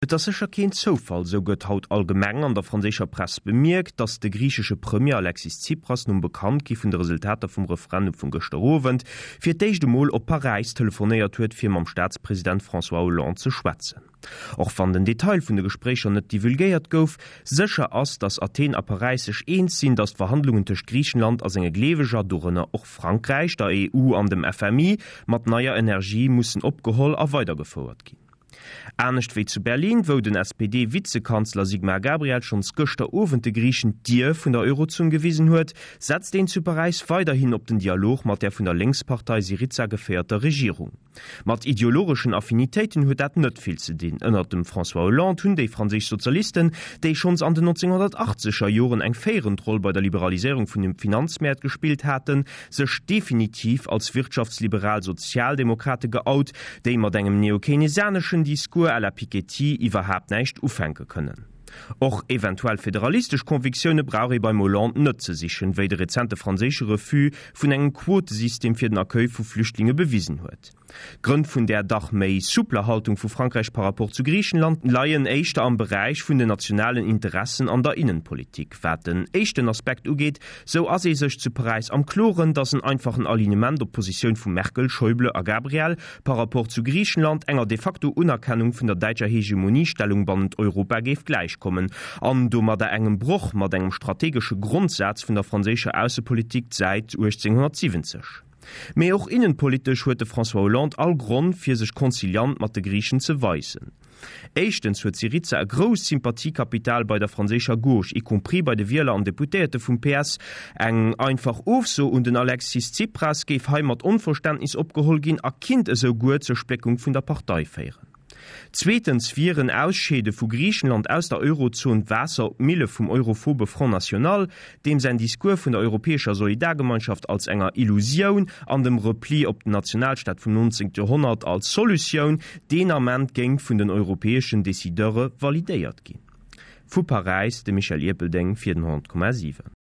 Et ass sécher keen Zoufall, sou gëtt haut allgemeng an der franséischer Press bemierkt, datt de griichesche Premier Alexis Tsipras nom Bekanntgi vun de Resultater vum Referendum vun gëschter Owend fir d'éischt emol op Paräis telefonéiert huet, fir mam Staatspresident François Hollande ze schwätzen. Och wann den Detail vun de Gespréicher net divulgéiert gouf, sécher ass, datt Athen a Paräis sech eens sinn, datt d'Verhandlungen tëscht Griichenland a senge Gleeweger, dorënner och Frankräich, der EU an dem FMI, mat neier Energie mussen opgeholl a weidergefouert ginn. Anescht wéi zu Berlin, wou den SPD-Vizekanzler Sigmar Gabriel schonns gëschter Owend de Griichen d'Dier vun der Eurozon gewisen huet, setzt een zu Paräis weiderhin op den Dialog mat der vun der Lénkspartei Syriza geféierter Regierung. Mat ideologeschen Affinitéiten huet dat net vill ze dinn. Ënnert dem François Hollande hunn déi franséisch Sozialisten, déi schonns an den 1980er Joren eng féierend Roll bei der Liberaliséierung vun de Finanzmäert gespillt haten, sech definitiv als wirtschaftsliberal Sozialdemokrate geout, déi mat engem neokeynesianeschen Discours à la Piketty iwwerhaapt näischt ufänke kënnen. Och eventuell federalistesch Convictioune brauch ee beim Hollande net ze sichen, wéi de rezente franséische Refus vun engem Quotesystem fir den Accueil vu Flüchtlinge bewisen huet. D'Grënn vun där dach méi soupler Haltung vu Frankräich par rapport zu Griichenland leien éischter am Beräich vun den nationalen Interessen an der Innenpolitik. Wat den éischten Aspekt ugeet, sou ass ee sech zu Paräis am Kloren, datt en einfachen Alignement op d'Positioun vu Merkel, Schäuble a Gabriel par rapport zu Griichenland enger de facto Unerkennung vun der däitscher Hegemoniestellung bannent Europa géif gläichkommen an domadder engem Broch mat engem strategesche Grondsaz vun der franséischer Aussepolitik säit 1870. Mee och innenpolitesch huet de François Hollande all Gronn fir sech conciliant mat de Griichen ze weisen. Éischtens huet Syriza e grousst Sympathiekapital bei der franséischer Gauche, y compris bei de Wieler an Deputéierte vum PS. Eng einfach Ofso un den Alexis Tsipras géif hei mat Onverständnis opgeholl ginn a kinnt esou guer zur Spléckung vun der Partei féieren. Zweetens wier en Ausscheede vu Griichenland aus der Eurozon Waasser op d'Mille vum europhobe Front National, deem säin Discours vun der europäescher Solidargemeinschaft als enger Illusioun an dem Repli op den Nationalstaat vum 19. Joerhonnert als Solutioun deen Ament géing vun den europäeschen Decideure validéiert ginn. Vu Paräis, de Michel Ierpeldeng fir den 100,7.